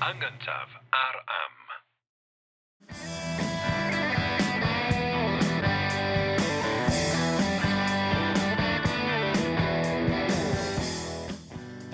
Yn gyntaf ar Am.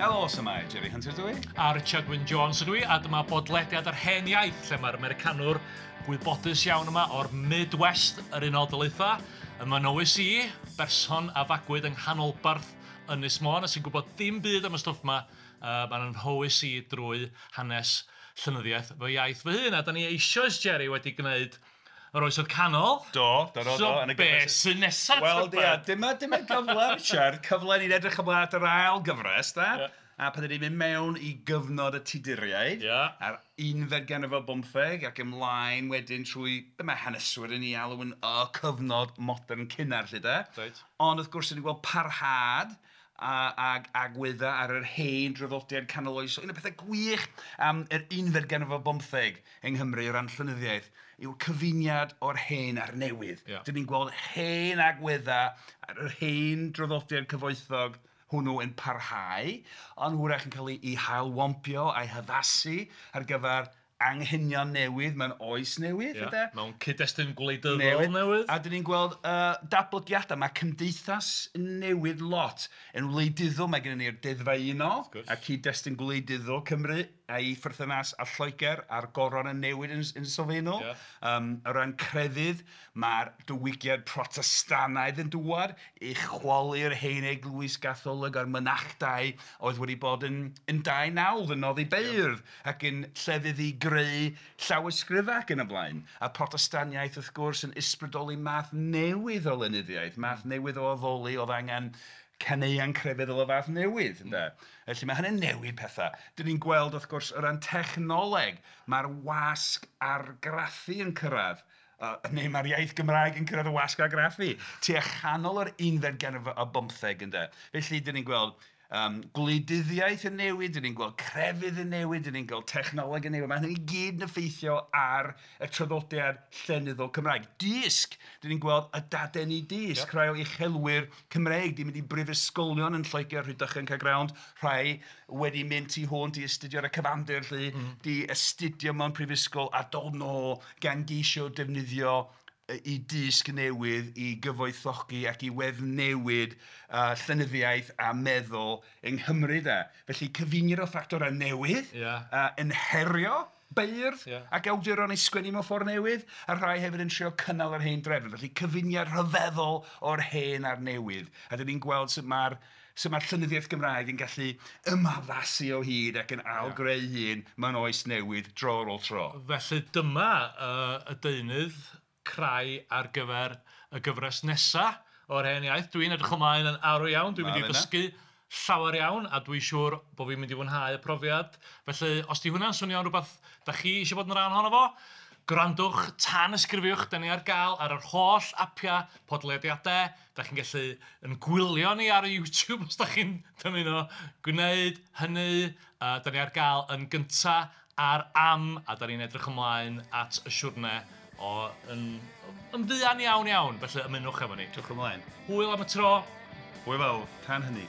Helo, shwmae, Jerry Hunter dwi. A Richard Wyn Jones ydw i, a dyma bodlediad yr hen iaith, lle mae'r Americanwr gwybodus iawn yma o'r Midwest yr Unol Daleithiau. Yma nowys i, berson a fagwyd yng nghanolbarth Ynys Môn, a sy'n gwybod dim byd am y stwff yma, mae'n nhywys i drwy hanes llenyddiaeth fy iaith fy hun. A da ni eisoes, Jerry, wedi gwneud yr Oesoedd Canol. Do, do, do, So do. Yn y be gyfres- sy'n nesaf? Wel, tybed? ia, dyma gyfle, Richard, cyfle ni'n edrych ymlaen at yr ail gyfres, da? Ie. A pan ydyn ni'n mynd mewn i gyfnod y Tuduriaid, a'r unfed ganrif ar bymtheg, ac ymlaen wedyn trwy, be mae haneswyr yn ei alw yn y cyfnod modern cynnar, lle da? Reit. Ond wrth gwrs, ni'n gweld parhad ag agweddau ar yr hen draddodiad canoloesol. Un o'r pethau gwych am yr unfed ganrif ar bymtheg yng Nghymru o ran llenyddiaeth yw'r cyfuniad o'r hen a'r newydd. Dyn ni'n gweld hen agweddau ar yr hen draddodiad cyfoethog hwnnw yn parhau, ond hwyrach yn cael ei hailwampio a'i haddasu ar gyfer anghenion newydd mewn oes newydd. Ynde? Mewn cyd-destun gwleidyddol newydd. A dyn ni'n gweld datblygiadau. Mae cymdeithas yn newid lot. Yn wleidyddol mae gennym ni'r deddfau unol a cyd-destun gwleidyddol Cymru a'i pherthynas â Lloegr a'r goron yn newid yn sylfaenol. O ran crefydd, mae'r diwygiad Protestannaidd yn dŵad i chwalu'r hen eglwys Gatholig a'r mynachdai oedd wedi bod yn dau nawdd yn noddi beirdd ac yn llefydd i greu llawysgrifau ac yn y blaen. A Protestaniaeth wrth gwrs yn ysbrydoli math newydd o lenyddiaeth, math newydd o addoli oedd angen caneuon crefyddol o fath newydd, ynde? Felly mae hynny'n newid pethau. Dyn ni'n gweld wrth gwrs o ran technoleg, mae'r wasg argraffu yn cyrraedd, neu mae'r iaith Gymraeg yn cyrraedd y wasg argraffu, tua chanol yr unfed ganrif ar bymtheg, ynde? Felly dyn ni'n gweld gwleidyddiaeth yn newid, dyn ni'n gweld crefydd yn newid, dyn ni'n gweld technoleg yn newid. Mae hynny i gyd yn effeithio ar y traddodiad llenyddol Cymraeg. Dysg, dyn ni'n gweld y dadeni dysg, rhai o uchelwyr Cymreig di mynd i brifysgolion yn Lloegr, Rhydychen, Caergrawnt, rhai wedi mynd tu hwnt i astudio ar y cyfandir, lly, di astudio mewn prifysgol a dod nôl gan geisio defnyddio i dysg newydd, i gyfoethogi ac i weddnewid llenyddiaeth a meddwl yng Nghymru, de. Felly cyfuniad o ffactorau newydd, yn herio beirdd ac awduron i sgwennu mewn ffordd newydd, a rhai hefyd yn trio cynnal yr hen drefn. Felly cyfuniad rhyfeddol o'r hen a'r newydd. A dyn ni'n gweld sut mae'r llenyddiaeth Gymraeg yn gallu ymaddasu o hyd ac yn ailgreu hun mewn oes newydd dro ar ôl tro. Felly dyma y deunydd crai ar gyfer y gyfres nesa o'r hen iaith. Dwi'n edrych ymlaen yn arw iawn, dwi'n mynd i ddysgu llawer iawn a dwi'n siŵr bod fi'n mynd i fwynhau y profiad. Felly, os di hwnna'n swnio'n rhywbeth da chi eisiau bod yn rhan ohono fo, gwrandwch, tanysgrifiwch, da ni ar gael ar yr holl apiau podlediadau. Da chi'n gallu yn gwylio ni ar YouTube os da chi'n dymuno gwneud hynny. Da ni ar gael yn gynta ar Am, a da ni'n edrych ymlaen at y siwrne o yn fuan iawn iawn. Felly ymunwch efo ni. Edrych ymlaen. Hwyl am y tro. Hwyl fawr, tan hynny.